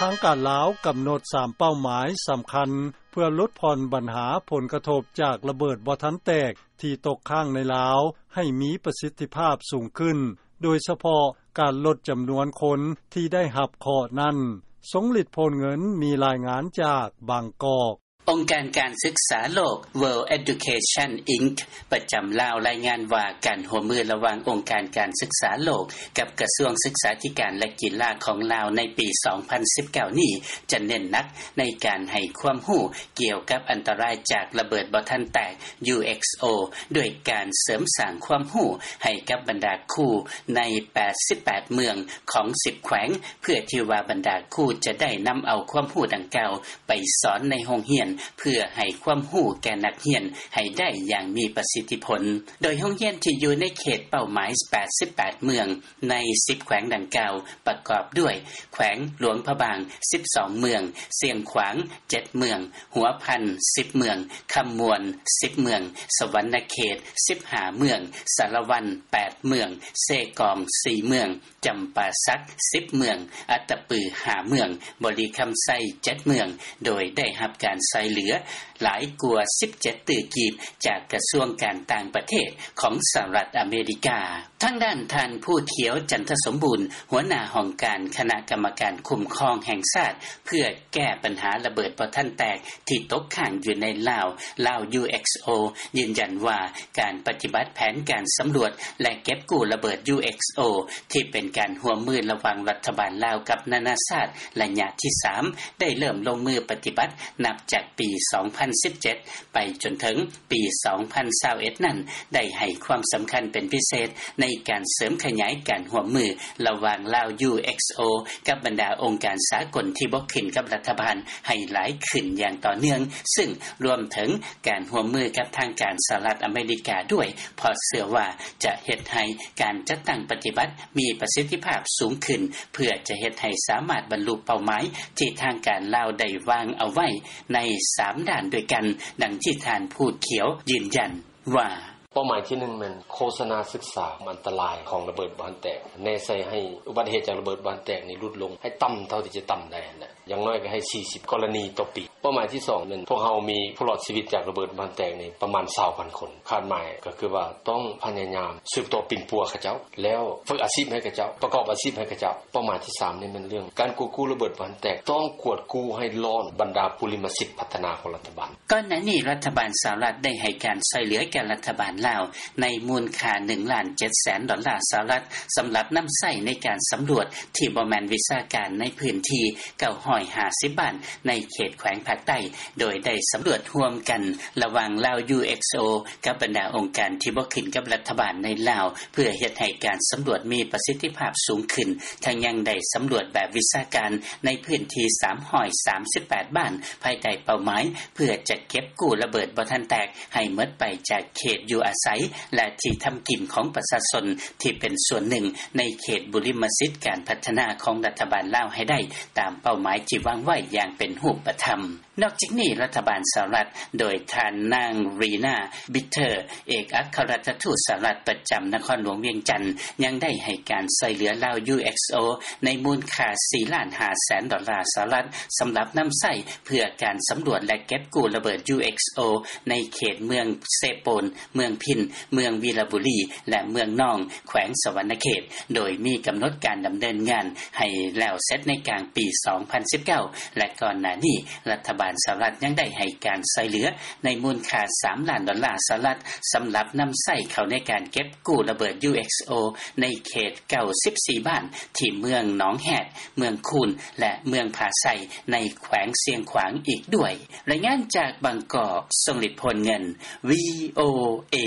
ທາງການລາວກຳນົດ ສາມເປົ້າໝາຍສຳຄັນ ເພື່ອຫຼຸດຜ່ອນບັນຫາຜົນກະທົບ ຈາກລະເບີດບໍ່ທັນແຕກ ທີ່ຕົກຄ້າງໃນລາວ ໃຫ້ມີປະສິດທິພາບສູງຂຶ້ນ, ໂດຍສະເພາະການລົດຈຳນວນຄົນ ທີ່ໄດ້ຮັບເຄາະນັ້ນ. ຊົງລິດ ໂພນເງິນ ມີລາຍງານຈາກບາງກອກ. ອົງການການສຶກສາໂລກ World Education Inc ປະຈຳລາວ ລາຍງານວ່າ ການຮ່ວມມືລະຫວ່າງອົງການການສຶກສາໂລກ ກັບກະຊວງສຶກສາທິການ ແລະ ກິລາຂອງລາວ ໃນປີສອງພັນສິບເກົ້ານີ້ ຈະເນັ້ນໜັກໃນການໃຫ້ຄວາມຮູ້ ກ່ຽວກັບອັນຕະລາຍຈາກລະເບີດບໍ່ທັນແຕກ UXO ດ້ວຍການເສີມສ້າງຄວາມຮູ້ໃຫ້ກັບບັນດາຄູໃນແປດສິບແປດເມືອງຂອງສິບແຂວງ ເພື່ອທີ່ວ່າບັນດາຄູຈະໄດ້ນຳເອົາຄວາມຮູ້ດັ່ງກ່າວ ໄປສອນໃນໂຮງຮຽນ ເພື່ອໃຫ້ຄວາມຮູ້ແກ່ນັກຮຽນໃຫ້ໄດ້ຢ່າງມີປະສິດທິຜົນ. ໂດຍໂຮງຮຽນທີ່ຢູ່ໃນເຂດເປົ້າໝາຍແປດສິບແປດເມືອງ ໃນສິບແຂວງດັ່ງກ່າວ ປະກອບດ້ວຍ ແຂວງຫຼວງພະບາງສິບສອງເມືອງ, ຊຽງຂວາງເຈັດເມືອງ, ຫົວພັນສິບເມືອງ, ຄຳມ່ວນສິບເມືອງ, ສະຫວັນນະເຂດສິບຫ້າເມືອງ, ສາລະວັນແປດເມືອງ, ເຊກອງສີ່ເມືອງ, ຈຳປາສັກສິບເມືອງ, ອັດຕະປືຫ້າເມືອງ, ບໍລິຄຳໄຊເຈັດເມືອງ ໂດຍໄດ້ຮັບການຊ່ວຍເຫຼືອຫຼາຍກວ່າສິບເຈັດຕື້ກີບ ຈາກກະຊວງການຕ່າງປະເທດຂອງສະຫະລັດອາເມລິກາ. ທາງດ້ານທ່ານ ພູຂຽວ ຈັນທະສົມບູນ ຫົວໜ້າຫ້ອງການຄະນະກຳມະການຄຸ້ມຄອງແຫ່ງຊາດ ເພື່ອແກ້ບັນຫາລະເບີດບໍ່ທັນແຕກ ທີ່ຕົກຄ້າງຢູ່ໃນລາວ ລາວ UXO ຢືນຢັນວ່າ ການປະຕິບັດແຜນການສຳຫຼວດ ແລະ ເກັບກູ້ລະເບີດ UXO ທີ່ເປັນການຮ່ວມມືລະຫວ່າງລັດຖະບານລາວກັບນານາຊາດ ໄລຍະທີສາມ ໄດ້ເລີ່ມລົງມືປະຕິບັດນັບຈາກປີສອງພັນສິບເຈັດ ໄປຈົນເຖິງປີສອງພັນຊາວເອັດນັ້ນ ໄດ້ໃຫ້ຄວາມສຳຄັນເປັນພິເສດ ໃນການເສີມຂະຫຍາຍການຮ່ວມມືລະຫວ່າງລາວ UXO ກັບບັນດາອົງການສາກົນທີ່ບໍ່ຂຶ້ນກັບລັດຖະບານໃຫ້ຫຼາຍຂຶ້ນຢ່າງຕໍ່ເນື່ອງ, ຊຶ່ງລວມເຖິງການຮ່ວມມືກັບທາງການສະຫະລັດອາເມລິກາດ້ວຍ, ເພາະເຊື່ອວ່າຈະເຮັດໃຫ້ການຈັດຕັ້ງປະຕິບັດມີປະສິດທິພາບສູງຂຶ້ນ, ເພື່ອຈະເຮັດໃຫ້ສາມາດບັນລຸເປົ້າໝາຍທີ່ທາງການລາວໄດ້ວາງເອົາໄວ້ໃນສາມດ້ານດ້ວຍກັນ, ດັ່ງທີ່ທ່ານ ພູຂຽວ ຢືນຢັນວ່າ: ເປົ້າໝາຍທີໜຶ່ງແມ່ນໂຄສະນາສຶກສາອັນຕະລາຍຂອງລະເບີດບໍ່ທັນແຕກ, ແນໃສ່ໃຫ້ອຸບັດເຫດຈາກລະເບີດບໍ່ທັນແຕກນີ້ຫຼຸດລົງໃຫ້ຕ່ຳເທົ່າທີ່ຈະຕ່ຳໄດ້ຫັ້ນແຫຼະ, ຢ່າງໜ້ອຍກໍໃຫ້ສີ່ສິບກໍລະນີຕໍ່ປີ. ເປົ້າໝາຍທີສອງແມ່ນພວກເຮົາມີຜູ້ລອດຊີວິດຈາກລະເບີດບໍ່ທັນແຕກນີ້ປະມານຊາວພັນຄົນ, ຄາດໝາຍກໍຄືວ່າຕ້ອງພະຍາຍາມສືບຕໍ່ປິ່ນປົວເຂົາເຈົ້າ, ແລ້ວຝຶກອາຊີບໃຫ້ເຂົາເຈົ້າ, ປະກອບອາຊີບໃຫ້ເຂົາເຈົ້າ. ເປົ້າໝາຍທີສາມນີ້ແມ່ນເລື່ອງການກວດກູ້ລະເບີດບໍ່ທັນແຕກ, ຕ້ອງກວດກູ້ໃຫ້ລ້ອນບັນດາບຸລິມະສິດພັດທະນາຂອງລັດຖະບານ. ກ່ອນໜ້ານີ້ລັດຖະບານສະຫະລັດໄດ້ໃຫ້ການຊ່ວຍເຫຼືອແກ່ລັດຖະບານລາວໃນມູນຄ່າໜຶ່ງລ້ານເຈັດແສນດອນລາສະຫະລັດ ສຳລັບນຳໃຊ້ໃນການສຳຫຼວດທີ່ບໍ່ແມ່ນວິຊາການໃນພື້ນທີ່ເກົ້າຮ້ອຍຫ້າສິບບ້ານໃນເຂດແຂວງພາກໃຕ້, ໂດຍໄດ້ສຳຫຼວດຮ່ວມກັນລະຫວ່າງລາວ UXO ກັບບັນດາອົງການທີ່ບໍ່ຂຶ້ນກັບລັດຖະບານໃນລາວ ເພື່ອເຮັດໃຫ້ການສຳຫຼວດມີປະສິດທິພາບສູງຂຶ້ນ, ທັງຍັງໄດ້ສຳຫຼວດແບບວິຊາການໃນພື້ນທີ່ສາມຮ້ອຍສາມສິບແປດບ້ານ ພາຍໃຕ້ເປົ້າໝາຍ ເພື່ອຈະເກັບກູ້ລະເບີດບໍ່ທັນແຕກໃຫ້ໝົດໄປຈາກເຂດຢູ່ອາໄສ ແລະ ທີ່ທຳກິນຂອງປະຊາຊົນທີ່ເປັນສ່ວນໜຶ່ງໃນເຂດບຸລິມະສິດການພັດທະນາຂອງລັດຖະບານລາວໃຫ້ໄດ້ຕາມເປົ້າໝາຍທີ່ວາງໄວ້ຢ່າງເປັນຮູບປະທຳ. ນອກຈາກນີ້ລັດຖະບານສະຫະລັດໂດຍທ່ານນາງ ຣີນາ ບິດເທີ ເອກອັກຄະລັດຖະທູດສະຫະລັດປະຈຳນະຄອນຫຼວງວຽງຈັນ ຍັງໄດ້ໃຫ້ການຊ່ວຍເຫຼືອລາວ UXO ໃນມູນຄ່າສີ່ລ້ານຫ້າແສນດອນລາສະຫະລັດ ສຳລັບນຳໃຊ້ເພື່ອການສຳຫຼວດ ແລະ ເກັບກູ້ລະເບີດ UXO ໃນເຂດເມືອງເຊໂປນ, ເມືອງພິນ, ເມືອງວີລະບູລີ ແລະ ເມືອງນອງ ແຂວງສະຫວັນນະເຂດ, ໂດຍມີກຳນົດການດຳເນີນງານໃຫ້ແລ້ວເສັດໃນກາງປີສອງພັນສິບເກົ້າ ແລະ ກ່ອນໜ້ານີ້ລັດຖະບານສະຫະລັດຍັງໄດ້ໃຫ້ການຊ່ວຍເຫຼືອໃນມູນຄ່າສາມລ້ານດອນລາສະຫະລັດ ສຳລັບນຳໃຊ້ເຂົ້າໃນການເກັບ ກູ້ລະເບີດ UXO ໃນເຂດເກົ້າສິບສີ່ບ້ານ ທີ່ເມືອງໜອງແຮດ, ເມືອງຄູນ ແລະ ເມືອງຜາໄຊ ໃນແຂວງຊຽງຂວາງອີກດ້ວຍ. ລາຍງານຈາກບາງກອກ, ຊົງລິດ ໂພນເງິນ VOA.